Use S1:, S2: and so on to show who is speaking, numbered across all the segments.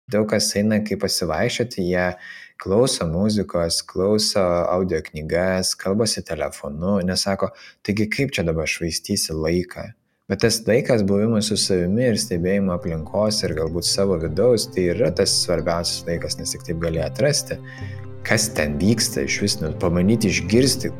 S1: Daug kas eina kaip pasivaikščioti, jie klauso muzikos, klauso audio knygas, kalbasi telefonu, nesako, taigi kaip čia dabar švaistysi laiką. Bet tas laikas buvimas su savimi ir stebėjimo aplinkos ir galbūt savo vidaus, tai yra tas svarbiausias laikas, nes tik taip gali atrasti, kas ten vyksta, iš vis pamanyti išgirsti.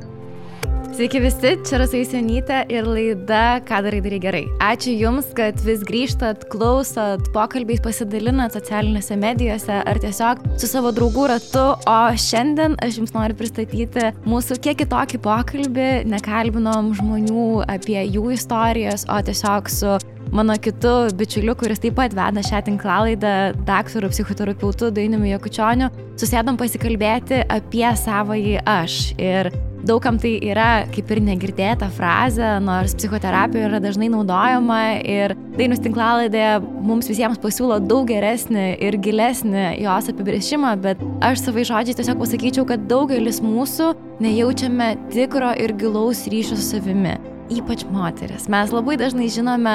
S2: Sveiki visi, čia Rasa Jusionytė ir laida Ką darai gerai. Ačiū Jums, kad vis grįžtat, klausot, pokalbiais pasidalinat socialinėse medijose ar tiesiog su savo draugų ratu, o šiandien aš Jums noriu pristatyti mūsų kiek kitokį pokalbį, nekalbinom žmonių apie jų istorijas, o tiesiog su mano kitu bičiuliu, kuris taip pat veda šią tinklalaidą, daktaru psichoterapeutu Dainiumi Jakučioniu, susėdom pasikalbėti apie savąjį aš. Ir daugam tai yra kaip ir negirdėta frazė, nors psichoterapija yra dažnai naudojama ir Dainius tinklalaidėje mums visiems pasiūlo daug geresnį ir gilesnį jos apibrėžimą, bet aš savai žodžiai tiesiog pasakyčiau, kad daugelis mūsų nejaučiame tikro ir gilaus ryšio su savimi. Ypač moteris. Mes labai dažnai žinome,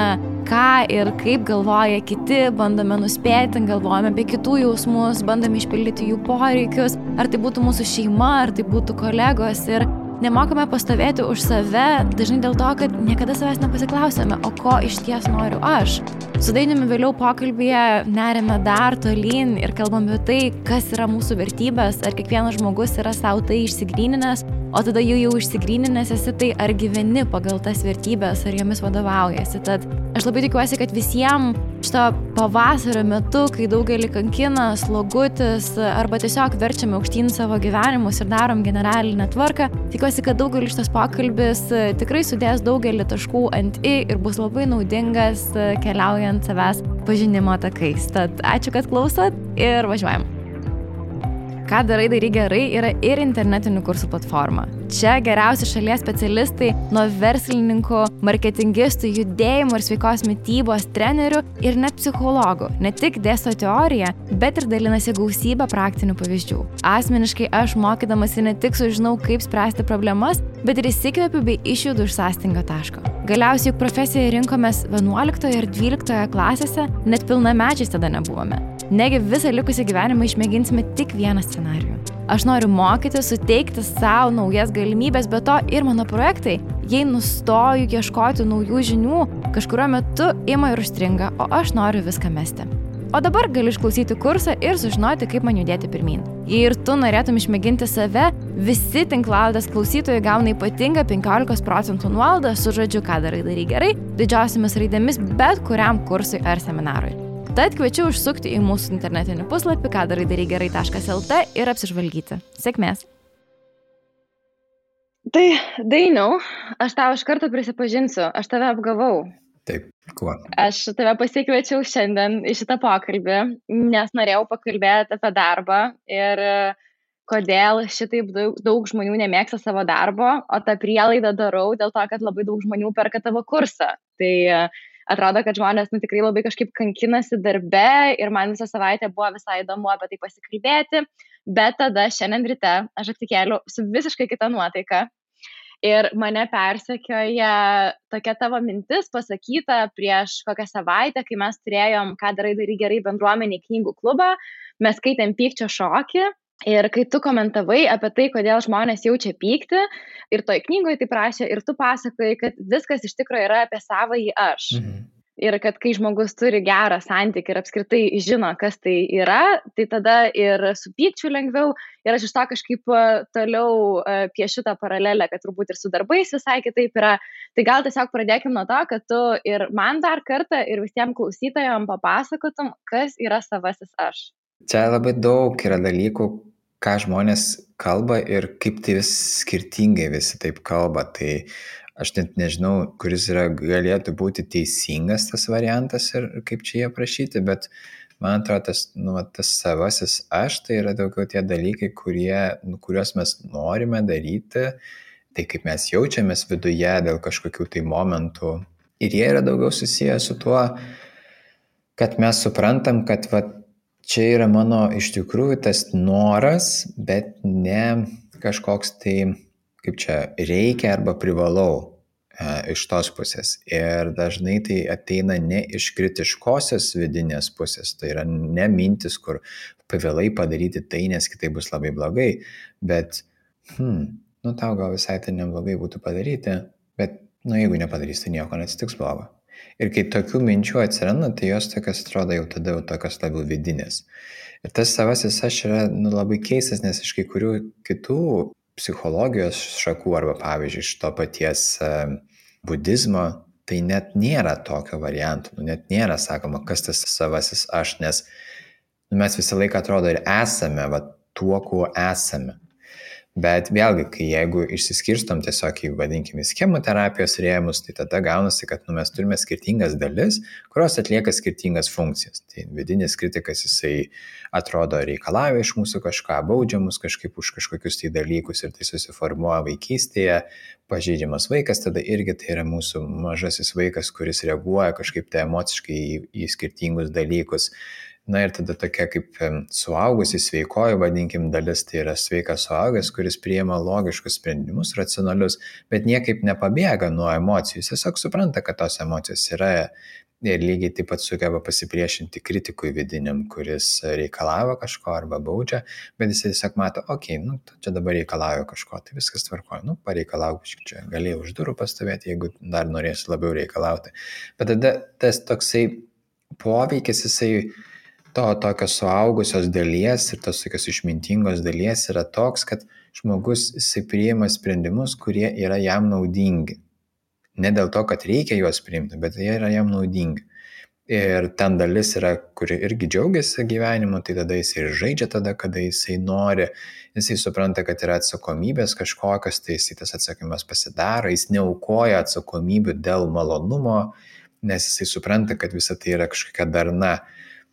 S2: ką ir kaip galvoja kiti, bandome nuspėti, galvojame apie kitų jausmus, bandome išpildyti jų poreikius, ar tai būtų mūsų šeima, ar tai būtų kolegos ir nemokame pastovėti už save, dažnai dėl to, kad niekada savęs nepasiklausėme, o ko iš ties noriu aš. Su Dainiumi vėliau pokalbėje nerime dar tolyn ir kalbame apie tai, kas yra mūsų vertybės, ar kiekvienas žmogus yra savo tai išsigryninęs, o tada jau išsigryninęs esi tai, ar gyveni pagal tas vertybės, ar jomis vadovaujasi. Tad aš labai tikiuosi, kad visiems šito pavasario metu, kai daugelį kankina slogutis arba tiesiog verčiame aukštyn savo gyvenimus ir darom generalinę tvarką, tikiuosi, kad daugelis šitas pokalbis tikrai sudės daugelį taškų ant i ir bus labai naudingas keliaujant savęs pažinimo takais. Tad ačiū, kad klausot ir važiuojam. Ką darai gerai yra ir internetinių kursų platforma. Čia geriausi šalies specialistai nuo verslininkų, marketingistų, judėjimo ir sveikos mitybos trenerių ir net psichologų. Ne tik dėsto teoriją, bet ir dalinasi gausybę praktinių pavyzdžių. Asmeniškai aš mokydamasi ne tik sužinau, kaip spręsti problemas, bet ir įsikvėpiu bei išjudu iš sąstingio taško. Galiausiai juk profesiją rinkomės 11 ir 12 klasėse, net pilnamečiais tada nebuvome. Negi visą likusį gyvenimą išmėginsime tik vieną scenarijų. Aš noriu mokyti, suteikti savo naujas galimybės, bet to ir mano projektai, jei nustoju ieškoti naujų žinių, kažkurio metu ima ir užstringa, o aš noriu viską mesti. O dabar gali išklausyti kursą ir sužinoti, kaip man judėti pirmyn. Jei ir tu norėtum išmėginti save, visi tinklalaidės klausytojai gauna ypatingą 15% nuolaidą su žodžiu Ką darai gerai, didžiausiamis raidėmis bet kuriam kursui ar seminarui. Tad kviečiu užsukti į mūsų internetinį puslapį kadarai-gerai.lt ir apsižvalgyti. Sėkmės! Tai, Dainiau, aš tau iš karto prisipažinsiu, aš tave apgavau.
S1: Taip, kuo?
S2: Aš tave pasikviečiau šiandien į šitą pokalbį, nes norėjau pakalbėti apie darbą ir kodėl šitaip daug žmonių nemėgsta savo darbo, o tą prielaidą darau dėl to, kad labai daug žmonių perka tavo kursą. Tai atrodo, kad žmonės tikrai labai kažkaip kankinasi darbe ir man visą savaitę buvo visai įdomu apie tai pasikalbėti, bet tada šiandien ryte aš atsikėliau su visiškai kita nuotaika ir mane persekioja tokia tavo mintis pasakyta prieš kokią savaitę, kai mes turėjom Ką darai gerai bendruomeniai knygų klubą, mes skaitėm Pykčio šokį. Ir kai tu komentavai apie tai, kodėl žmonės jaučia pyktį, ir toj knygoje tai prašė, ir tu pasakoji, kad viskas iš tikrųjų yra apie savąjį aš. Ir kad kai žmogus turi gerą santykį ir apskritai žino, kas tai yra, tai tada ir su pykčiu lengviau. Ir aš iš to kažkaip toliau piešiu tą paralelę, kad turbūt ir su darbais visai kitaip yra. Tai gal tiesiog pradėkim nuo to, kad tu ir man dar kartą ir visiems klausytojams papasakotum, kas yra savasis aš.
S1: Čia labai daug yra dalykų, ką žmonės kalba ir kaip tai vis skirtingai visi taip kalba. Tai aš net nežinau, kuris galėtų būti teisingas tas variantas ir kaip čia jie aprašyti, bet man atrodo, tas savasis aš, tai yra daugiau tie dalykai, kuriuos mes norime daryti, tai kaip mes jaučiamės viduje dėl kažkokių tai momentų. Ir jie yra daugiau susiję su tuo, kad mes suprantam, kad čia yra mano iš tikrųjų tas noras, bet ne kažkoks tai, kaip čia, reikia arba privalau. iš tos pusės. Ir dažnai tai ateina ne iš kritiškosios vidinės pusės, tai yra ne mintis, kur pavėlai padaryti tai, nes kitai bus labai blogai, bet tau gal visai tai neblogai būtų padaryti, bet jeigu nepadarys, tai nieko neatsitiks blogo. Ir kai tokių minčių atsiranda, tai jos tokios atrodo jau tada tokios labiau vidinės. Ir tas savasis aš yra labai keistas, nes iš kai kurių kitų psichologijos šakų arba pavyzdžiui iš to paties budizmo, tai net nėra tokio varianto, net nėra sakoma, kas tas savasis aš, nes mes visą laiką atrodo ir esame tuo, kuo esame. Bet vėlgi, jeigu išsiskirstom tiesiog į, vadinkime, schemų terapijos rėmus, tai tada gaunasi, kad mes turime skirtingas dalis, kurios atlieka skirtingas funkcijas. Tai vidinis kritikas, jisai atrodo reikalauja iš mūsų kažką, baudžia mus kažkaip už kažkokius tai dalykus ir tai susiformuoja vaikystėje. Pažeidžiamas vaikas, tada irgi tai yra mūsų mažasis vaikas, kuris reaguoja kažkaip tai emociškai į skirtingus dalykus. Ir tada tokia kaip suaugusi sveikoji, vadinkim, dalis, tai yra sveikas suaugęs, kuris priima logiškus sprendimus, racionalius, bet niekaip nepabėga nuo emocijų. Jis tiesiog supranta, kad tos emocijos yra ir lygiai taip pat sugeba pasipriešinti kritikui vidiniam, kuris reikalavo kažko arba baudžia, bet jis tiesiog mato, čia dabar reikalauju kažko, tai viskas tvarkoja, pareikalauk, čia galėjau už durų pastovėti, jeigu dar norėsi labiau reikalauti. Bet tada tas toksai poveikis, jisai to tokios suaugusios dalies ir tos tokios išmintingos dalies yra toks, kad žmogus priima sprendimus, kurie yra jam naudingi. Ne dėl to, kad reikia juos priimti, bet jie yra jam naudingi. Ir ten dalis yra, kuri irgi džiaugiasi gyvenimu, tai tada jis ir žaidžia tada, kada jisai nori, jisai supranta, kad yra atsakomybės kažkokios, tai jisai tas atsakymas pasidaro, jis neaukoja atsakomybių dėl malonumo, nes jisai supranta, kad visa tai yra kažkokia darna.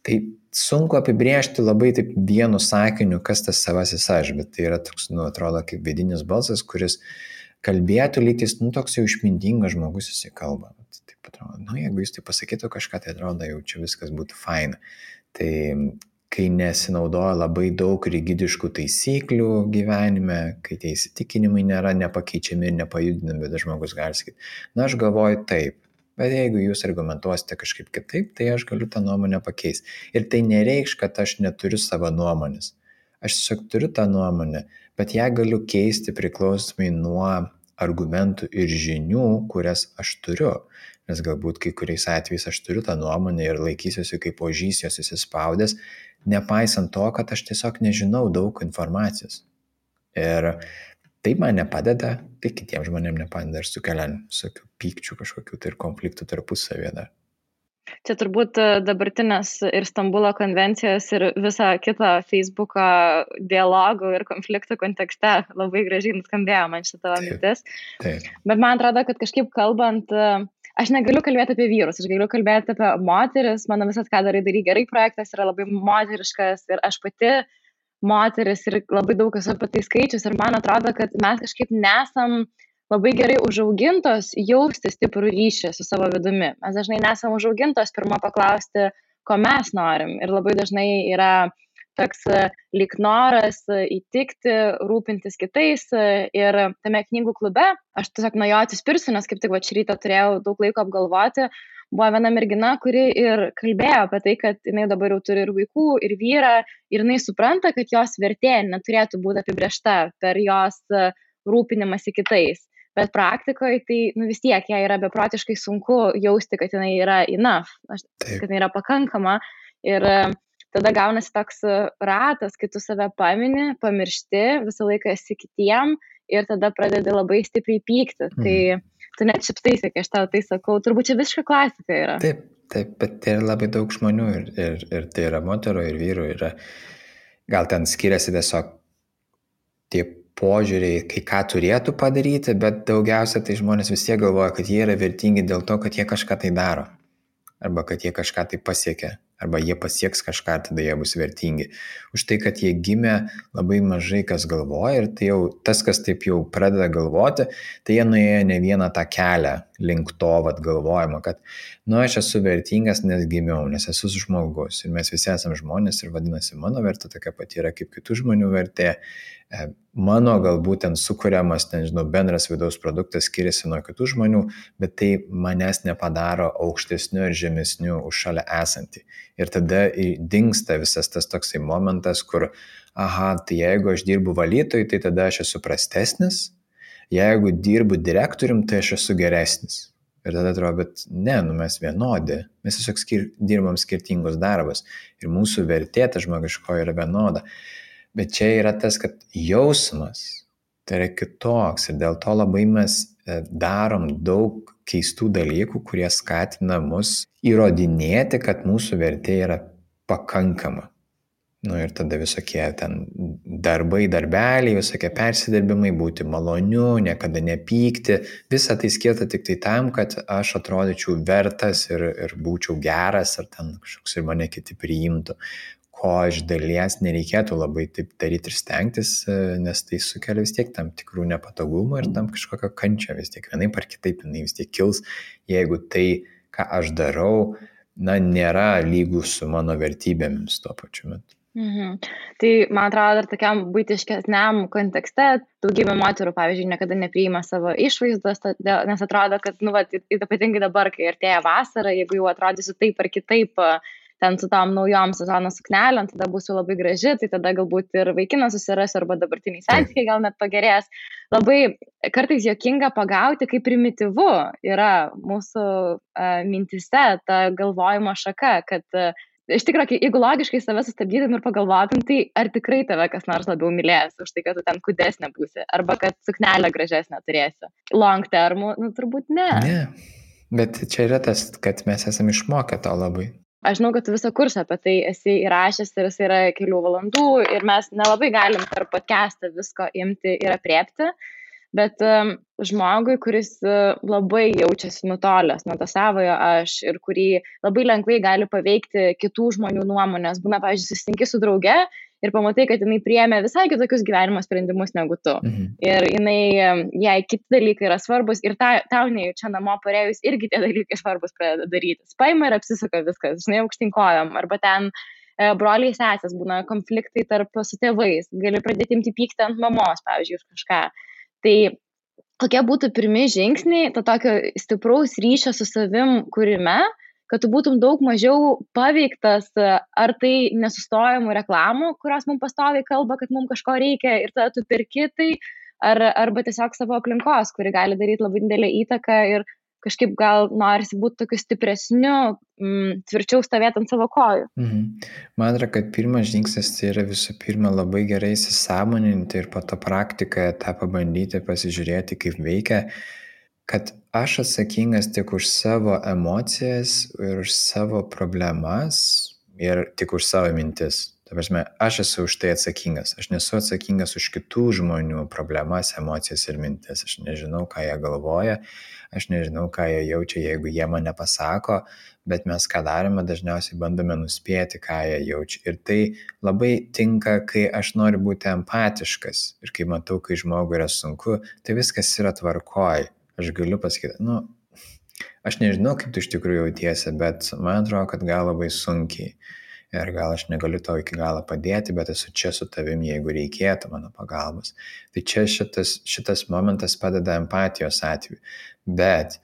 S1: Tai sunku apibrėžti labai taip vienu sakiniu, kas tas savasis aš, bet tai yra toks, atrodo, kaip vidinis balsas, kuris kalbėtų lytis, toks jau išmintingas žmogus jisai kalba. Taip atrodo, jeigu jis tai pasakytų kažką, tai atrodo, jau čia viskas būtų faina. Tai kai nesinaudoja labai daug rigidiškų taisyklių gyvenime, kai tie įsitikinimai nėra nepakeičiami ir nepajudinami, bet žmogus gali sakyti, aš galvoju taip. Bet jeigu jūs argumentuosite kažkaip kitaip, tai aš galiu tą nuomonę pakeisti. Ir tai nereikš, kad aš neturiu savo nuomonės. Aš tiesiog turiu tą nuomonę, bet ją galiu keisti priklausomai nuo argumentų ir žinių, kurias aš turiu. Nes galbūt kai kuriais atvejais aš turiu tą nuomonę ir laikysiuosi kaip ožys jos įsispaudęs, nepaisant to, kad aš tiesiog nežinau daug informacijos. Ir tai man nepadeda, tai kitiems žmonėms nepadeda ir sukelia visokių pykčių kažkokių tai ir konfliktų tarpusavėje dar.
S2: Čia turbūt dabartinės ir Stambulo konvencijos ir visą kitą Facebooko dialogų ir konfliktų kontekste labai gražiai nuskambėjo man šitą mintis.
S1: Taip.
S2: Bet man atrodo, kad kažkaip kalbant, aš negaliu kalbėti apie vyrus, aš galiu kalbėti apie moteris, mano visas ką darai gerai projektas yra labai moteriškas ir aš pati moteris ir labai daug esu apie tai skaičius ir man atrodo, kad mes kažkaip nesam labai gerai užaugintos jausti stiprų ryšį su savo vidumi. Mes dažnai nesam užaugintos pirmą paklausti, ko mes norim ir labai dažnai yra toks lyg noras įtikti, rūpintis kitais ir tame knygų klube, aš tiesiog nuo jo atsispirsiu, nes kaip tik šį rytą turėjau daug laiko apgalvoti, buvo viena mergina, kuri ir kalbėjo apie tai, kad jinai dabar jau turi ir vaikų, ir vyrą, ir jinai supranta, kad jos vertė neturėtų būti apibrėžta per jos rūpinimąsi kitais. Bet praktikoje tai vis tiek jai yra beprotiškai sunku jausti, kad jinai yra enough, kad jinai yra pakankama. Ir tada gaunasi toks ratas, kai tu save pamini, pamiršti, visą laiką esi kitiem ir tada pradedi labai stipriai pykti. Tai tu net šiptaisi, kai aš tau tai sakau, turbūt čia visiška klasika yra.
S1: Taip, bet tai yra labai daug žmonių ir tai yra moterų ir vyrų. Gal ten skiriasi tiesiog tie požiūriai, kai ką turėtų padaryti, bet daugiausia tai žmonės vis tiek galvoja, kad jie yra vertingi dėl to, kad jie kažką tai daro. Arba kad jie kažką tai pasiekia. Arba jie pasieks kažką, tada jie bus vertingi. Už tai, kad jie gimė, labai mažai kas galvoja ir tai jau tas, kas taip jau pradeda galvoti, tai jie nuėjo ne vieną tą kelią link to galvojimo, kad, aš esu vertingas, nes gimiau, nes esu žmogus ir mes visi esame žmonės ir vadinasi, mano vertė tokia pati yra kaip kitų žmonių vertė. Mano galbūt ten sukuriamas, bendras vidaus produktas skiriasi nuo kitų žmonių, bet tai manęs nepadaro aukštesniu ir žemesniu už šalia esantį. Ir tada dingsta visas tas toksai momentas, kur, tai jeigu aš dirbu valytojui, tai tada aš esu prastesnis, jeigu dirbu direktorium, tai aš esu geresnis. Ir tada atrodo, bet ne, mes vienodi, mes tiesiog dirbam skirtingus darbus ir mūsų vertė ta žmogiškoji yra vienoda. Bet čia yra tas, kad jausmas tai yra kitoks ir dėl to labai mes darom daug keistų dalykų, kurie skatina mus įrodinėti, kad mūsų vertė yra pakankama. Ir tada visokie ten darbai, darbeliai, visokie persidirbimai, būti maloniu, niekada nepykti. Visa tai skirta tik tai tam, kad aš atrodyčiau vertas ir būčiau geras, ar ten kažkoks ir mane kiti priimtų. Ko iš dalies nereikėtų labai taip daryti ir stengtis, nes tai sukelia vis tiek tam tikrų nepatogumų ir tam kažkokio kančio vis tiek. Vienaip ar kitaip jinai vis tiek kils, jeigu tai, ką aš darau, nėra lygų su mano vertybėmis tuo pačiu metu.
S2: Tai, man atrodo, dar tokiam buitiškesniam kontekste daugybė moterų, pavyzdžiui, niekada nepriima savo išvaizdos, nes atrodo, kad, ypatingai dabar, kai artėja vasara, jeigu jau atrodysiu taip ar kitaip, ten su tom naujom sezono suknelėm, tada būsiu labai graži, tai tada galbūt ir vaikinas susirasiu, arba dabartiniai santykiai gal net pagerės. Labai kartais juokinga pagauti, kaip primityvu yra mūsų mintise ta galvojimo šaka, kad iš tikrųjų, jeigu logiškai save sustabdytum ir pagalvotum, tai ar tikrai tave kas nors labiau mylės už tai, kad tu ten kūdesnė būsi, arba kad suknelę gražesnę turėsi. Long term, turbūt ne.
S1: Ne, bet čia yra tas, kad mes esame išmokę to labai.
S2: Aš žinau, kad tu visą kursą apie tai esi įrašęs ir jis yra kelių valandų ir mes nelabai galim per podcastą visko imti ir apriepti, bet žmogui, kuris labai jaučiasi nutolęs nuo to savojo aš ir kurį labai lengvai gali paveikti kitų žmonių nuomonės, būna, pavyzdžiui, susitinki su drauge ir pamatai, kad jinai priėmė visai kitokius gyvenimo sprendimus negu tu. Ir jai kiti dalykai yra svarbus ir tau nejučia namo parėjus irgi tie dalykai svarbus pradeda daryti. Paima ir apsisuka viskas, aukštyn kojom, arba ten broliai sesės būna konfliktai su tėvais, gali pradėti imti pyktį ant mamos, pavyzdžiui, už kažką. Tai kokie būtų pirmi žingsniai to tokio stipraus ryšio su savim kūrime, kad tu būtum daug mažiau paveiktas ar tai nesustojamų reklamų, kurios mums pastoviai kalba, kad mums kažko reikia ir tada tu perki tai, arba tiesiog savo aplinkos, kuri gali daryti labai didelę įtaką ir kažkaip gal norisi būti tokiu stipresniu, tvirčiau stovėti ant savo kojų.
S1: Man atrodo, kad pirmas žingsnis tai yra visų pirma labai gerai įsisąmoninti ir po to praktikoje tą pabandyti, pasižiūrėti, kaip veikia, kad aš atsakingas tik už savo emocijas ir už savo problemas ir tik už savo mintis. Ta prasme, aš esu už tai atsakingas. Aš nesu atsakingas už kitų žmonių problemas, emocijas ir mintis. Aš nežinau, ką jie galvoja, aš nežinau, ką jie jaučia, jeigu jie man nepasako, bet mes ką darome, dažniausiai bandome nuspėti, ką jie jaučia. Ir tai labai tinka, kai aš noriu būti empatiškas ir kai matau, kai žmogui yra sunku, tai viskas yra tvarkoj. Aš galiu pasakyti, aš nežinau, kaip tu iš tikrųjų jautiesi, bet man atrodo, kad gal labai sunkiai. Ir gal aš negaliu tau iki galo padėti, bet esu čia su tavimi, jeigu reikėtų mano pagalbos. Tai čia šitas momentas padeda empatijos atveju. Bet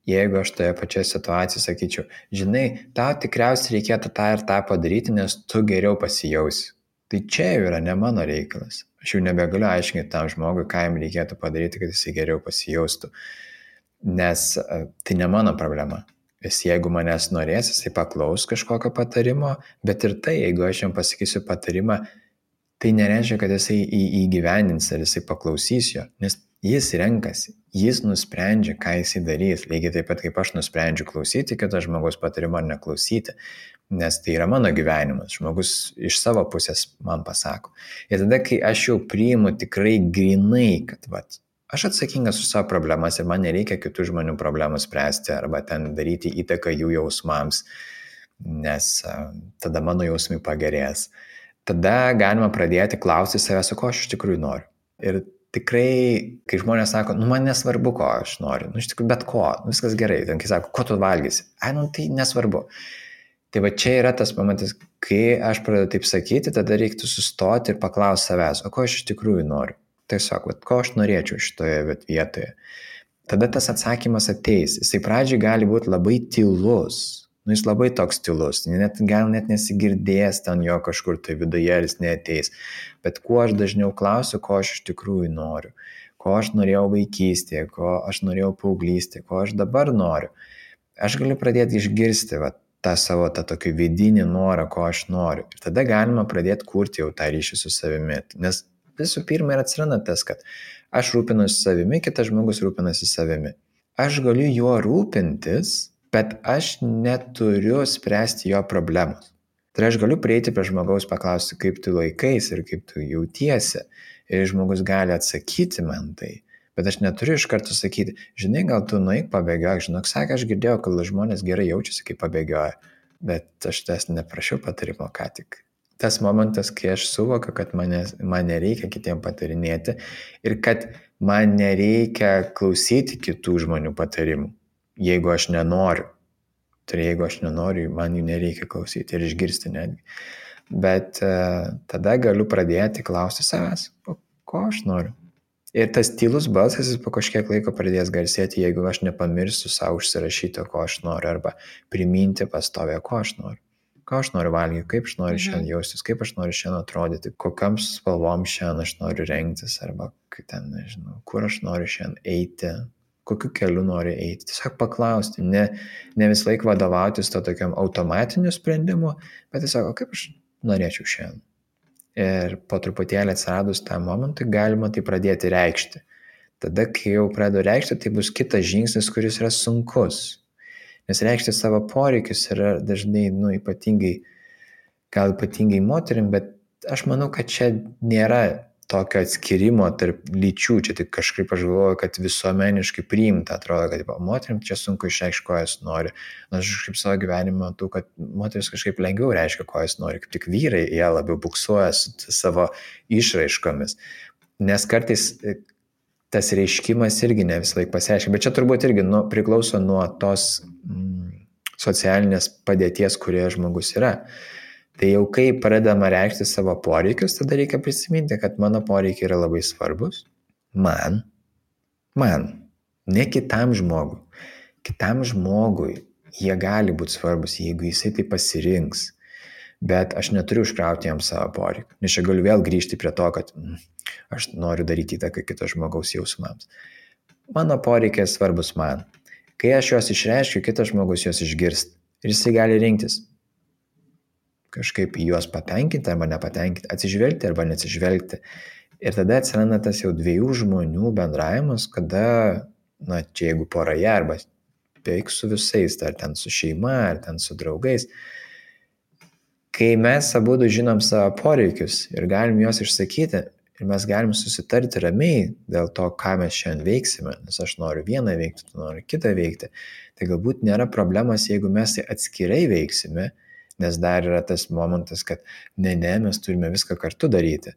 S1: jeigu aš toje pačioje situacijoje sakyčiau, žinai, tau tikriausiai reikėtų tą ir tą padaryti, nes tu geriau pasijausi. Tai čia jau yra ne mano reikalas. Aš jau nebegaliu aiškinti tam žmogui, ką jam reikėtų padaryti, kad jis geriau pasijaustų. Nes tai ne mano problema. Jeigu manęs norės, jisai paklaus kažkokio patarimo, bet ir tai, jeigu aš jam pasakysiu patarimą, tai nereiškia, kad jisai įgyvendins ar jisai paklausys jo, nes jis renkasi, jis nusprendžia, ką jisai darys, lygiai taip pat kaip aš nusprendžiu klausyti kito žmogaus patarimo ar neklausyti, nes tai yra mano gyvenimas, žmogus iš savo pusės man pasako. Ir tada, kai aš jau priimu tikrai grinai, kad aš atsakingas už savo problemas ir man nereikia kitų žmonių problemų spręsti arba ten daryti įtaką jų jausmams, nes tada mano jausmai pagerės. Tada galima pradėti klausti savęs, ko aš iš tikrųjų noriu. Ir tikrai, kai žmonės sako, man nesvarbu, ko aš noriu, iš tikrųjų bet ko, viskas gerai, ten kai sako, ko tu valgysi, tai nesvarbu. Tai va čia yra tas momentas, kai aš pradedu taip sakyti, tada reiktų sustoti ir paklausti savęs, o ko aš iš tikrųjų noriu. Tiesiog, ko aš norėčiau šitoje vietoje. Tada tas atsakymas ateis. Jisai pradžiai gali būti labai tylus. Jis labai toks tylus. Gal net nesigirdės ten jo kažkur tai viduje, jis neateis. Bet kuo aš dažniau klausiu, ko aš iš tikrųjų noriu. Ko aš norėjau vaikystėje, ko aš norėjau paauglystėje, ko aš dabar noriu. Aš galiu pradėti išgirsti tą savo tokį vidinį norą, ko aš noriu. Ir tada galima pradėti kurti jau tą ryšį su savimi. Nes visų pirma ir atsiranda tas, kad aš rūpinuosi savimi, kitas žmogus rūpinasi savimi. Aš galiu juo rūpintis, bet aš neturiu spręsti jo problemos. Tai aš galiu prieiti prie žmogaus, paklausti, kaip tu laikais ir kaip tu jautiesi. Ir žmogus gali atsakyti man tai. Bet aš neturiu iš karto sakyti, žinai, gal tu nueik pabėgiok. Žinok, sakė, aš girdėjau, kad žmonės gerai jaučiasi, kai pabėgioja. Bet aš tas neprašiau patarimo ką tik. Tas momentas, kai aš suvokiu, kad man nereikia kitiem patarinėti ir kad man nereikia klausyti kitų žmonių patarimų, jeigu aš nenoriu. Tai jeigu aš nenoriu, man jų nereikia klausyti ir išgirsti netgi. Bet tada galiu pradėti klausti savęs, ko aš noriu. Ir tas tylus balsas jis po kažkiek laiko pradės garsėti, jeigu aš nepamirsiu savo užsirašyti, ko aš noriu, arba priminti pastovę, ko aš noriu. Ką aš noriu valgyti, kaip aš noriu šiandien jaustis, kaip aš noriu šiandien atrodyti, kokiam spalvom šiandien aš noriu rengtis, arba kur aš noriu šiandien eiti, kokiu keliu noriu eiti. Tiesiog paklausti, ne vis laik vadovautis to tokiam automatiniu sprendimu, bet tiesiog, kaip aš norėčiau šiandien. Ir po truputėlį atsiradus tą momentą galima tai pradėti reikšti. Tada, kai jau pradedu reikšti, tai bus kitas žingsnis, kuris yra sunkus. Nes reikšti savo poreikius yra dažnai, ypatingai moterim, bet aš manau, kad čia nėra tokio atskirimo tarp lyčių. Čia tik kažkaip aš galvoju, kad visuomeniškai priimta, atrodo, kad moterim čia sunku išreikšti, ko jos nori. Aš kažkaip savo gyvenime matau, kad moteris kažkaip lengviau reiškia, ko jos nori. Kaip tik vyrai, jie labiau buksuoja su savo išraiškomis. Nes kartais tas reiškimas irgi ne visą laiką pasireiškia, bet čia turbūt irgi priklauso nuo tos socialinės padėties, kurioje žmogus yra. Tai jau kai pradedama reikšti savo poreikius, tada reikia prisiminti, kad mano poreikiai yra labai svarbus. Man, ne kitam žmogui. Kitam žmogui jie gali būti svarbus, jeigu jisai tai pasirinks. Bet aš neturiu užkrauti jam savo poreikių. Nes čia galiu vėl grįžti prie to, kad aš noriu daryti įtaką kito žmogaus jausmams. Mano poreikiai svarbus man. Kai aš juos išreiškiu, kitas žmogus juos išgirst. Ir jisai gali rinktis. Kažkaip juos patenkinti arba nepatenkinti, atsižvelgti arba neatsižvelgti. Ir tada atsiranda tas jau dviejų žmonių bendravimas, kada, čia jeigu poroje arba beveik su visais, ar ten su šeima, ar ten su draugais, kai mes abudu žinom savo poreikius ir galim juos išsakyti ir mes galim susitarti ramiai dėl to, ką mes šiandien veiksime, nes aš noriu vieną veikti, tu nori kitą veikti, tai galbūt nėra problemas, jeigu mes tai atskirai veiksime, nes dar yra tas momentas, kad ne, mes turime viską kartu daryti.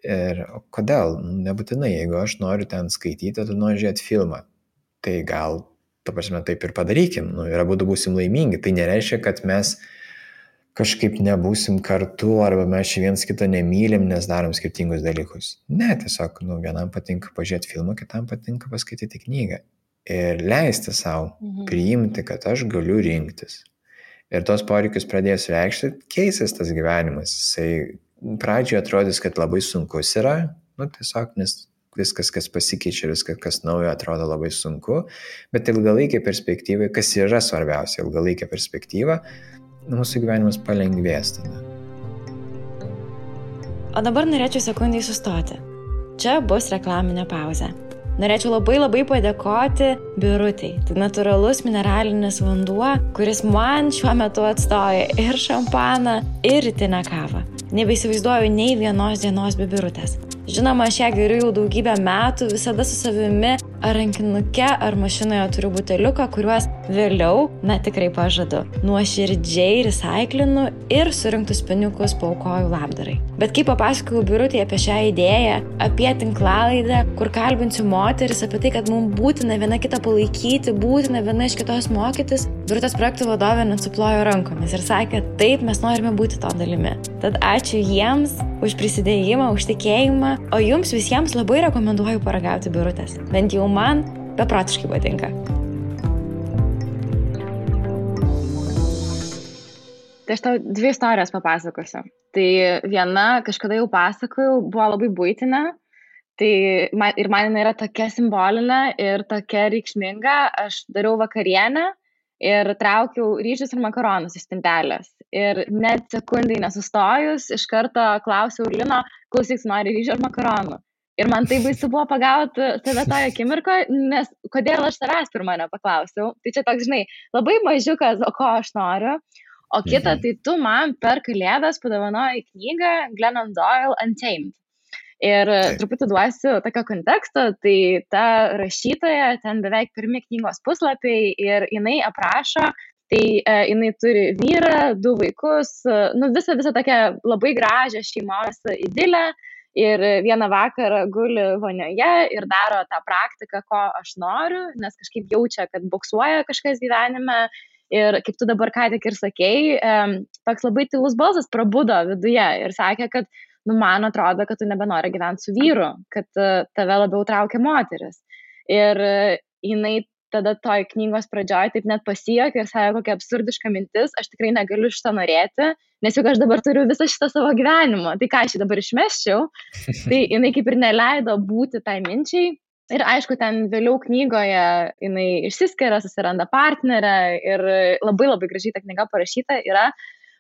S1: Ir kodėl? Nebūtinai, jeigu aš noriu ten skaityti, tu nori žiūrėti filmą, tai gal, taip ir padarykim, ir abudu būsim laimingi. Tai nereiškia, kad mes kažkaip nebūsim kartu, arba mes viens kitą nemylim, nes darom skirtingus dalykus. Ne, tiesiog, vienam patinka pažiūrėti filmą, kitam patinka paskaityti knygą. Ir leisti savo priimti, kad aš galiu rinktis. Ir tos poreikius pradės reikšti, keisis tas gyvenimas. Jisai pradžioje atrodys, kad labai sunkus yra, tiesiog, nes viskas, kas pasikeičia, viskas, kas naujo, atrodo labai sunku, bet ilgalaikė perspektyva, kas yra svarbiausia, ilgalaikė perspektyva, mūsų gyvenimas palengvės tada.
S2: O dabar norėčiau sekundai sustoti. Čia bus reklaminė pauzė. Norėčiau labai padėkoti Birutei. Tai natūralus mineralinis vanduo, kuris man šiuo metu atstoja ir šampaną, ir rytinę kavą. Nebeįsivaizduoju nei vienos dienos be Birutės. Žinoma, aš ją geriu jau daugybę metų, visada su savimi ar rankinuke, ar mašinoje turiu buteliuką, kuriuos vėliau, tikrai pažadu, nuoširdžiai recaiklinu ir surinktus pinigus paaukoju labdarai. Bet kai papasakojau Birutei apie šią idėją, apie tinklalaidę, kur kalbinsiu moteris, apie tai, kad mums būtina viena kitą palaikyti, būtina viena iš kitos mokytis, Birutės projektų vadovė net suplojo rankomis ir sakė, taip, mes norime būti to dalimi. Tad ačiū jiems už prisidėjimą, už tikėjimą, o jums visiems labai rekomenduoju paragauti Birutės. Bent jau man beprotiškai patinka. Tai aš tau 2 istorijas papasakosiu. Tai viena, kažkada jau pasakojau, buvo labai buitinė. Tai man jinai yra tokia simbolinė ir tokia reikšminga. Aš dariau vakarienę ir traukiau ryžius ir makaronus iš spintelės. Ir net sekundai nesustojus, iš karto klausiau Lino, klausyk, nori ryžių ar makaronų. Ir man tai baisu buvo pagauti tave toje akimirkoje, nes kodėl aš tavęs pirmą nepaklausiau. Tai čia toks, žinai, labai mažiukas, o ko aš noriu. O kita, tai tu man per Kalėdas padovanojai knygą Glennon Doyle Untamed. Ir truputį duosiu tokio konteksto, tai ta rašytoja, ten beveik pirmi knygos puslapiai ir jinai aprašo, tai jinai turi vyrą, 2 vaikus, visą tokią labai gražią šeimos idilę ir vieną vakarą guli vonioje ir daro tą praktiką, ko aš noriu, nes kažkaip jaučia, kad boksuoja kažkas gyvenime. Ir kaip tu dabar ką tik ir sakei, toks labai tylus balsas prabudo viduje ir sakė, kad man atrodo, kad tu nebenori gyventi su vyru, kad tave labiau traukia moteris. Ir jinai tada toj knygos pradžioj taip net pasijuokė ir sakė, kokia absurdiška mintis, aš tikrai negaliu šitą norėti, nes juk aš dabar turiu visą šitą savo gyvenimą, tai ką aš dabar išmesčiau, tai jinai kaip ir neleido būti tai minčiai. Ir aišku, ten vėliau knygoje jinai išsiskiria, susiranda partnerę ir labai labai gražiai ta knyga parašyta yra,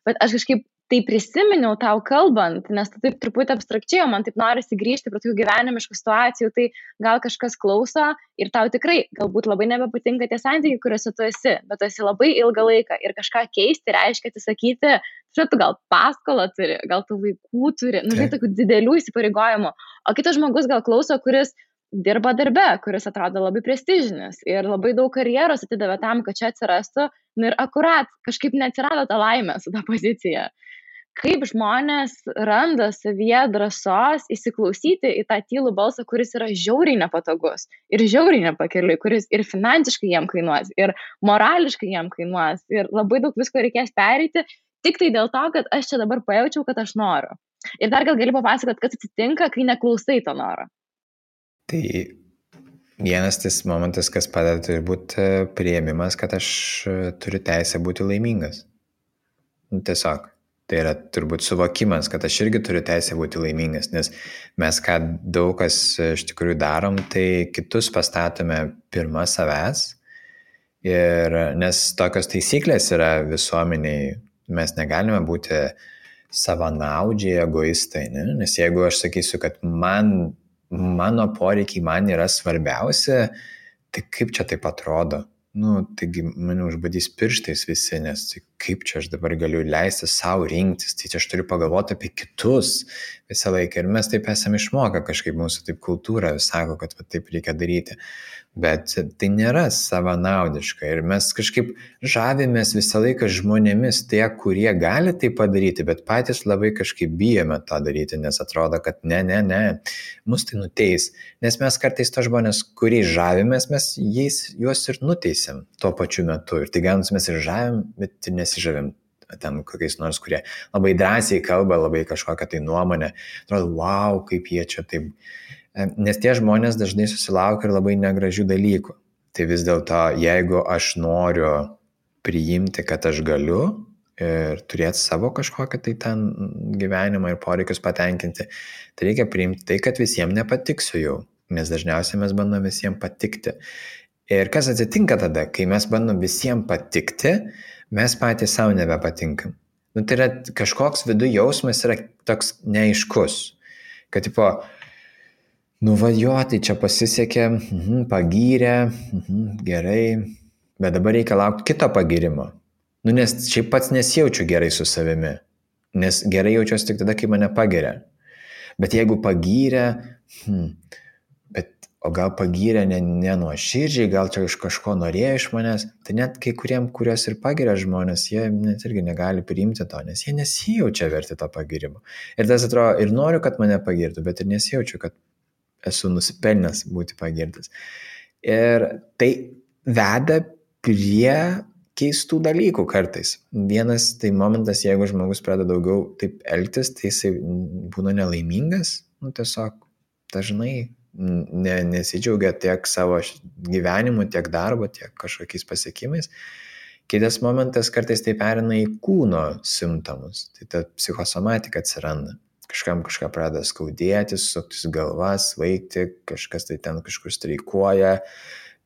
S2: bet aš kažkaip tai prisiminiau tau kalbant, nes tu taip truputį abstrakčiai, man taip norisi grįžti prie tokių gyvenimiškų situacijų, tai gal kažkas klauso ir tau tikrai galbūt labai nebepatinka tie santykiai, kuriuose tu esi, bet tu esi labai ilgą laiką ir kažką keisti reiškia atsisakyti, tu gal paskolą turi, gal tu vaikų turi, tokių didelių įsipareigojimų, o kitas žmogus gal klauso, kuris dirba darbe, kuris atrodo labai prestižinis ir labai daug karjeros atidavė tam, kad čia atsirastų, ir akurat kažkaip neatsirado tą laimę su tą poziciją. Kaip žmonės randa savyje drąsos įsiklausyti į tą tylų balsą, kuris yra žiauriai nepatogus ir žiauriai nepakeliui, kuris ir finansiškai jam kainuos, ir morališkai jam kainuos, ir labai daug visko reikės pereiti, tik tai dėl to, kad aš čia dabar pajaučiau, kad aš noriu. Ir dar gal gali papasakoti, kas atsitinka, kai neklausai to noro.
S1: Tai vienas tas momentas, kas padeda, turi būti priėmimas, kad aš turiu teisę būti laimingas. Tiesiog. Tai yra turbūt suvokimas, kad aš irgi turiu teisę būti laimingas, nes mes ką daug kas iš tikrųjų darom, tai kitus pastatome pirma savęs. Ir nes tokios taisyklės yra visuomeniai, mes negalime būti savanaudžiai, egoistai, ne? Nes jeigu aš sakysiu, kad mano poreikiai man yra svarbiausia, tai kaip čia taip atrodo? Taigi mane užbadys pirštais visi, nes tai kaip čia aš dabar galiu leisti savo rinktis, tai čia aš turiu pagalvoti apie kitus visą laiką. Ir mes taip esame išmokę kažkaip, mūsų taip kultūra sako, kad taip reikia daryti. Bet tai nėra savanaudiška ir mes kažkaip žavimės visą laiką žmonėmis tie, kurie gali tai padaryti, bet patys labai kažkaip bijome tą daryti, nes atrodo, kad ne, mus tai nuteis. Nes mes kartais to žmonės, kuriais žavimės, mes juos ir nuteisėm tuo pačiu metu. Ir tai gaunus mes ir žavim, bet ir nesižavim ten kokiais nors, kurie labai drąsiai kalba, labai kažkokią tai nuomonę. Atrodo, wow, kaip jie čia taip. Nes tie žmonės dažnai susilaukia ir labai negražių dalykų. Tai vis dėlto, jeigu aš noriu priimti, kad aš galiu ir turėti savo kažkokią tai ten gyvenimą ir poreikius patenkinti, tai reikia priimti tai, kad visiems nepatiksiu jau, nes dažniausiai mes bandom visiems patikti. Ir kas atsitinka tada, kai mes bandom visiems patikti, mes patys savo nebepatinkam. Tai yra kažkoks vidų jausmas yra toks neaiškus, kad tipo, tai čia pasisekė, pagyrė, gerai, bet dabar reikia laukti kito pagyrimo. Nes šiaip pats nesijaučiu gerai su savimi, nes gerai jaučiuosi tik tada, kai mane pagiria. Bet jeigu pagyrė, bet o gal pagyrė nenuoširdžiai, gal čia iš kažko norėjo iš manęs, tai net kai kuriem, kurios ir pagiria žmonės, jie net irgi negali priimti to, nes jie nesijaučia verti to pagirimo. Ir tas atrodo, ir noriu, kad mane pagirtų, bet ir nesijaučiu, kad esu nusipelnęs būti pagirtas. Ir tai veda prie keistų dalykų kartais. Vienas tai momentas, jeigu žmogus pradeda daugiau taip elgtis, tai jisai būna nelaimingas, tiesiog dažnai nesidžiaugia tiek savo gyvenimu, tiek darbo, tiek kažkokiais pasiekimais. Kitas momentas kartais tai perina į kūno simptomus, tai ta psichosomatika atsiranda. Kažkam kažką pradeda skaudėti, suktis galvas, svaigti, kažkas tai ten kažkur streikuoja,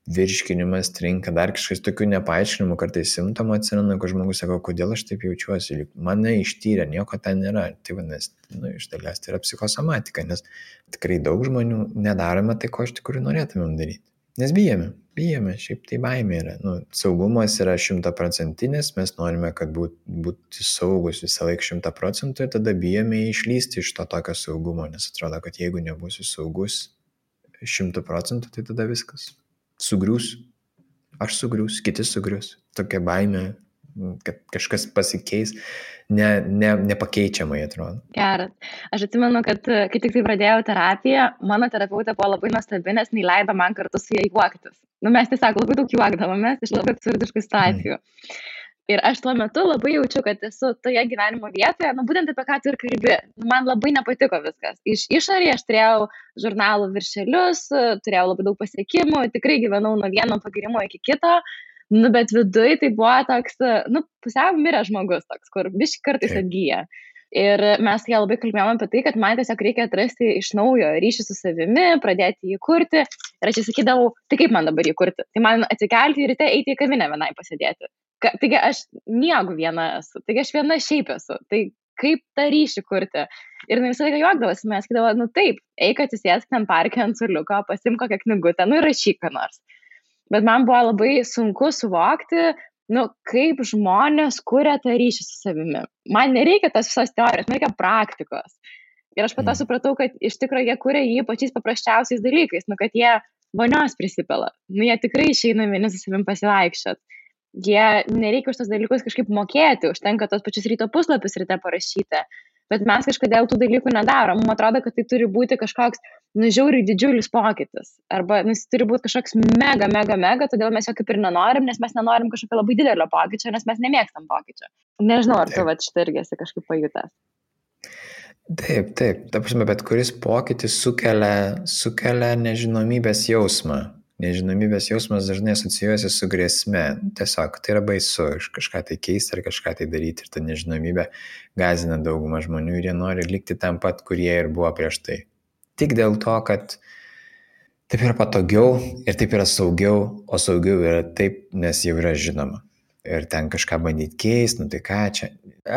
S1: virškinimas trinka, dar kažkas tokių nepaaiškinimų kartais simptomų atsiranda, kur žmogus sako, kodėl aš taip jaučiuosi, mane ištyrė, nieko ten nėra. Tai vadinasi, iš dalies tai yra psichosomatika, nes tikrai daug žmonių nedarome tai, ko iš tikrųjų norėtumėm daryti. Nes bijome, šiaip tai baimė yra. Saugumas yra 100%, mes norime, kad būti saugus visą laiką 100% ir tada bijome išlysti iš to tokio saugumo, nes atrodo, kad jeigu nebūsiu saugus 100%, tai tada viskas sugrius, aš sugrius, kiti sugrius. Tokia baimė, kad kažkas pasikeis, nepakeičiamai atrodo.
S2: Geras. Aš atsimenu, kad kai tik tai pradėjau terapiją, mano terapeutė buvo labai nuostabi, nes neleido man kartu su jai juoktis. Mes tiesiog labai daug juokdavomės iš labai absurdiškų situacijų. Ir aš tuo metu labai jaučiu, kad esu toje gyvenimo vietoje, būtent apie ką tu ir kalbi. Man labai nepatiko viskas. Iš išorėje aš turėjau žurnalų viršelius, turėjau labai daug pasiekimų, tikrai gyvenau nuo vieno pagirimo iki kito, bet viduj tai buvo toks, pusiau miręs žmogus toks, kur biškį kartais atgyja. Ir mes ją labai kalbėjome apie tai, kad man tiesiog reikia atrasti iš naujo ryšį su savimi, pradėti jį kurti. Ir aš sakydavau, tai kaip man dabar jį kurti? Tai man atsikelti ir ryte eiti į kavinę vienai pasėdėti. Taigi aš miegu viena esu, taigi aš viena šiaip esu, tai kaip tą ryšį kurti. Ir visą laiką juokdavosi, mes sakydavo, taip, eik atsisėsk ten parke ant suoliuko, pasimk kokią knygutę, ir rašyk ką nors. Bet man buvo labai sunku suvokti, kaip žmonės kuria tą ryšį su savimi. Man nereikia tos visos teorijos, man reikia praktikos. Ir aš po to supratau, kad iš tikrųjų jie kuria jį pačiais paprasčiausiais dalykais, kad jie vonios prisipila, jie tikrai išeina vieni su savim pasivaikščiot. Jie nereikia už tos dalykus kažkaip mokėti, užtenka tos pačius ryto puslapius ryte parašyti, bet mes kažkodėl tų dalykų nedarom. Man atrodo, kad tai turi būti kažkoks žiauriai didžiulis pokytis, arba jis turi būti kažkoks mega, todėl mes jo kaip ir nenorim, nes mes nenorim kažkokio labai didelio pokyčio, nes mes nemėgstam pokyčio. Nežinau, ar tu šitą irgi esi kažkaip pajutęs.
S1: Taip, ta prasme, bet kuris pokytis sukelia nežinomybės jausmą. Nežinomybės jausmas dažnai asocijuojasi su grėsme. Tiesiog tai yra baisu kažką tai keisti ar kažką tai daryti. Ir ta nežinomybė gąsdina daugumą žmonių ir jie nori likti tam pat, kurie ir buvo prieš tai. Tik dėl to, kad taip yra patogiau ir taip yra saugiau, o saugiau yra taip, nes jau yra žinoma. Ir ten kažką bandyti keisti, tai ką čia.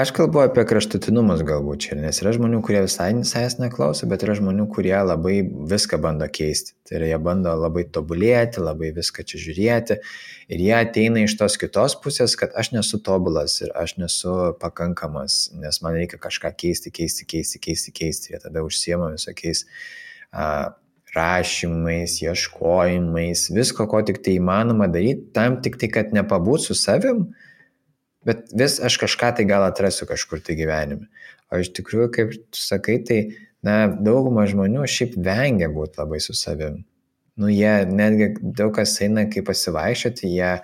S1: Aš kalbu apie kraštutinumus galbūt čia, nes yra žmonių, kurie visai neklauso, bet yra žmonių, kurie labai viską bando keisti. Tai yra, jie bando labai tobulėti, labai viską čia žiūrėti. Ir jie ateina iš tos kitos pusės, kad aš nesu tobulas ir aš nesu pakankamas, nes man reikia kažką keisti. Jie tada užsiema visokiais rašymais, ieškojimais, visko, ko tik tai įmanoma daryti, tam tik tai, kad nepabūt su savim, bet vis aš kažką tai gal atrasiu kažkur tai gyvenime. O iš tikrųjų, kaip tu sakai, tai dauguma žmonių šiaip vengia būti labai su savim. Jie netgi daug kas eina kaip pasivaikščioti, jie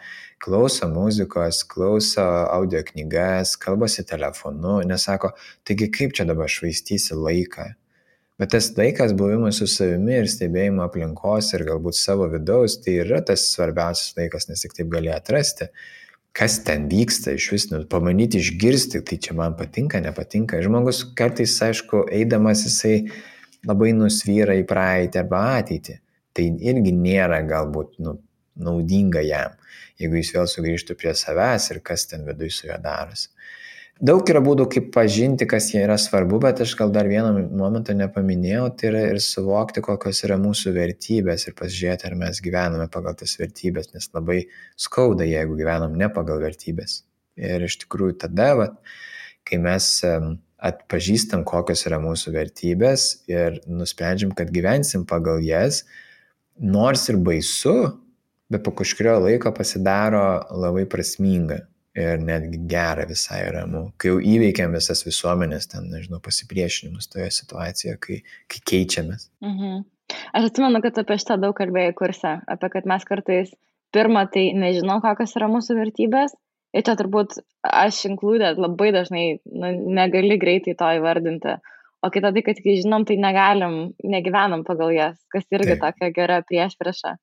S1: klauso muzikos, klauso audio knygas, kalbasi telefonu, nesako, taigi kaip čia dabar švaistysi laiką. Bet tas laikas buvimas su savimi ir stebėjimo aplinkos ir galbūt savo vidaus, tai yra tas svarbiausias laikas, nes tik taip gali atrasti, kas ten vyksta, iš vis pamanyti, išgirsti, tai čia man patinka, nepatinka. Žmogus kartais, aišku, eidamas jisai labai nusvyra į praeitį arba ateitį. Tai irgi nėra galbūt naudinga jam, jeigu jis vėl sugrįžtų prie savęs ir kas ten viduj su juo darosi. Daug yra būdų, kaip pažinti, kas jie yra svarbu, bet aš gal dar vieną momentą nepaminėjau, tai yra ir suvokti, kokios yra mūsų vertybės ir pasižiūrėti, ar mes gyvename pagal tas vertybės, nes labai skauda, jeigu gyvenam ne pagal vertybės. Ir iš tikrųjų tada, kai mes atpažįstam, kokios yra mūsų vertybės ir nusprendžiam, kad gyvensim pagal jas, nors ir baisu, bet po kažkurio laiko pasidaro labai prasminga ir netgi gera visai ramu, kai jau įveikiam visas visuomenės, ten, nežinau, pasipriešinimus toje situacijoje, kai keičiamės.
S2: Aš atsimenu, kad apie šitą daug kalbėjau kurse, apie kad mes kartais pirmą tai nežinom, kokios yra mūsų vertybės, ir čia turbūt aš included labai dažnai negali greitai to įvardinti, o kita tai, kad kai žinom, tai negyvenam pagal jas, kas irgi tokia gera priešprieša.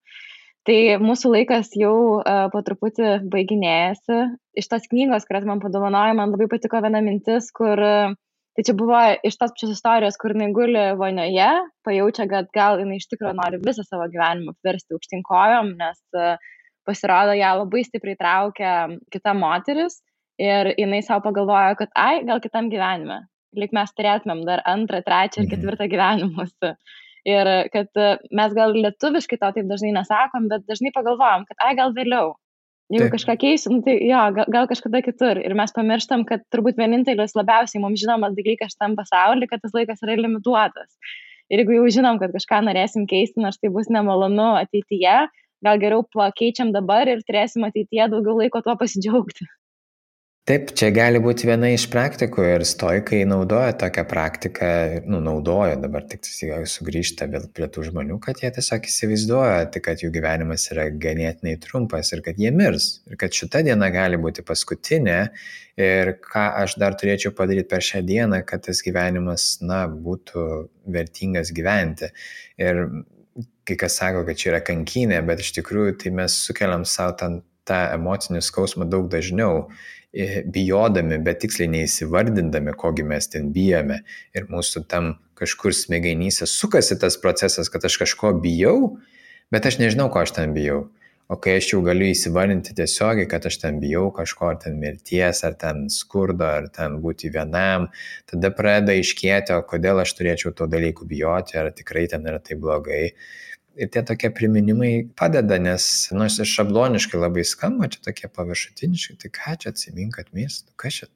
S2: Tai mūsų laikas jau po truputį baiginėjasi. Iš tos knygos, kurias man padovanojo, man labai patiko viena mintis, kur tai čia buvo iš tos pačios istorijos, kur jinai guli vonioje, pajaučia, kad gal jinai iš tikrųjų nori visą savo gyvenimą apversti aukštyn kojom, nes pasirodo, ją labai stipriai traukia kita moteris ir jinai savo pagalvojo, kad gal kitam gyvenime, lyg mes turėtumėm dar 2, 3 ir 4 gyvenimus. Ir kad mes gal lietuviškai to taip dažnai nesakom, bet dažnai pagalvojam, kad gal vėliau. Jeigu kažką keisiu, tai jo, gal kažkada kitur. Ir mes pamirštam, kad turbūt vienintelis labiausiai mums žinomas dalykas šitam pasaulyje, kad tas laikas yra limituotas. Ir jeigu jau žinom, kad kažką norėsim keisti, nors tai bus nemalonu ateityje, gal geriau pakeičiam dabar ir turėsim ateityje daugiau laiko tuo pasidžiaugti.
S1: Taip, čia gali būti viena iš praktikų ir stoikai naudoja tokią praktiką, naudoja dabar tik sugrįžta vėl prie tų žmonių, kad jie tiesiog įsivaizduoja, kad jų gyvenimas yra ganėtinai trumpas ir kad jie mirs. Ir kad šita diena gali būti paskutinė ir ką aš dar turėčiau padaryti per šią dieną, kad tas gyvenimas, būtų vertingas gyventi. Ir kai kas sako, kad čia yra kankynė, bet iš tikrųjų tai mes sukeliam savo tą emocinį skausmą daug dažniau, bijodami, bet tiksliai neįsivardindami, kogi mes ten bijome. Ir mūsų tam kažkur smegenyse sukasi tas procesas, kad aš kažko bijau, bet aš nežinau, ko aš ten bijau. O kai aš jau galiu įsivardinti tiesiogiai, kad aš ten bijau kažko, ar ten mirties, ar ten skurdo, ar ten būti vienam, tada pradeda aiškėti, o kodėl aš turėčiau to dalykų bijoti, ar tikrai ten yra tai blogai. Ir tie tokie priminimai padeda, nes, nors ir šabloniškai labai skamba, čia tokie paviršutiniškai, tai ką čia atsimink, kad mirsi, kas čia,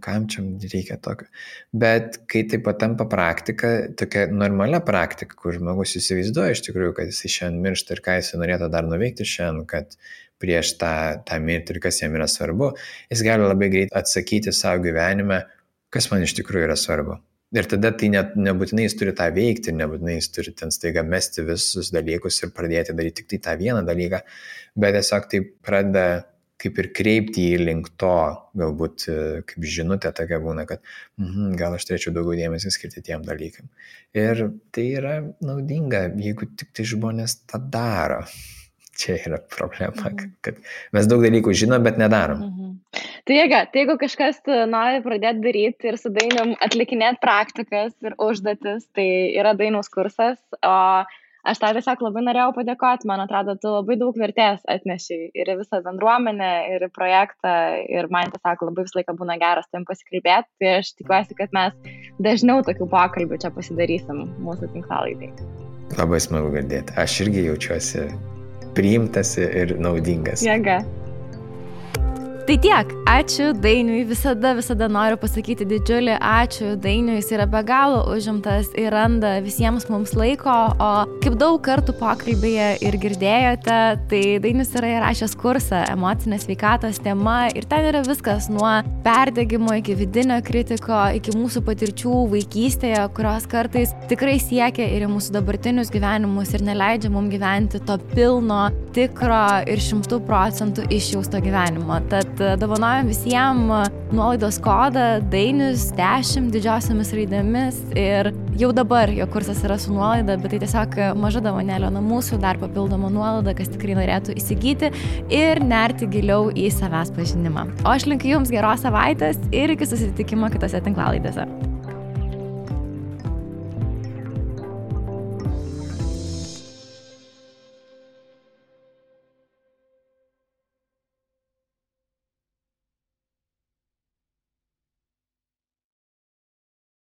S1: kam čia reikia tokio. Bet kai tai patampa praktika, tokia normalia praktika, kur žmogus įsivaizduoja iš tikrųjų, kad jis šiandien miršta ir ką jis norėtų dar nuveikti šiandien, kad prieš tą mirtį ir kas jam yra svarbu, jis gali labai greit atsakyti savo gyvenime, kas man iš tikrųjų yra svarbu. Ir tada tai nebūtinai jis turi tą veikti, nebūtinai jis turi ten staiga mesti visus dalykus ir pradėti daryti tik tai tą vieną dalyką, bet tiesiog tai pradeda kaip ir kreipti į link to, galbūt kaip žinutė tokia būna, kad gal aš turėčiau daugiau dėmesio skirti tiem dalykam. Ir tai yra naudinga, jeigu tik tai žmonės tą daro. Čia yra problema, kad mes daug dalykų žinom, bet nedarom.
S2: Tai jeigu kažkas nori pradėti daryti ir su Dainium atlikinėti praktikas ir užduotis, tai yra Dainiaus kursas, o aš tau tiesiog labai norėjau padėkoti, man atrodo, tu labai daug vertės atnešiai ir visą bendruomenę, ir projektą, ir man tiesiog labai visą laiką būna geras tam pasikalbėti, tai aš tikiuosi, kad mes dažniau tokių pokalbių čia pasidarysim mūsų tinklalaidai.
S1: Labai smagu girdėti, aš irgi jaučiuosi priimtas ir naudingas.
S2: Jėga. Tai tiek, ačiū Dainiui, visada noriu pasakyti didžiulį ačiū Dainiui, jis yra be galo užimtas ir randa visiems mums laiko, o kaip daug kartų pokalbėje ir girdėjote, tai Dainius yra įrašęs kursą emocinės sveikatos tema ir ten yra viskas nuo perdegimo iki vidinio kritiko, iki mūsų patirčių vaikystėje, kurios kartais tikrai siekia ir į mūsų dabartinius gyvenimus ir neleidžia mums gyventi to pilno, tikro ir 100% išjausto gyvenimo. Tad dovanojam visiems nuolaidos kodą Dainius 10 didžiosiamis raidėmis ir jau dabar jo kursas yra su nuolaida, bet tai tiesiog maža dovanėlė nuo mūsų, dar papildoma nuolaida, kas tikrai norėtų įsigyti ir nerti giliau į savęs pažinimą. O aš linkiu jums geros savaitės ir iki susitikimo kitose tinklalaidėse.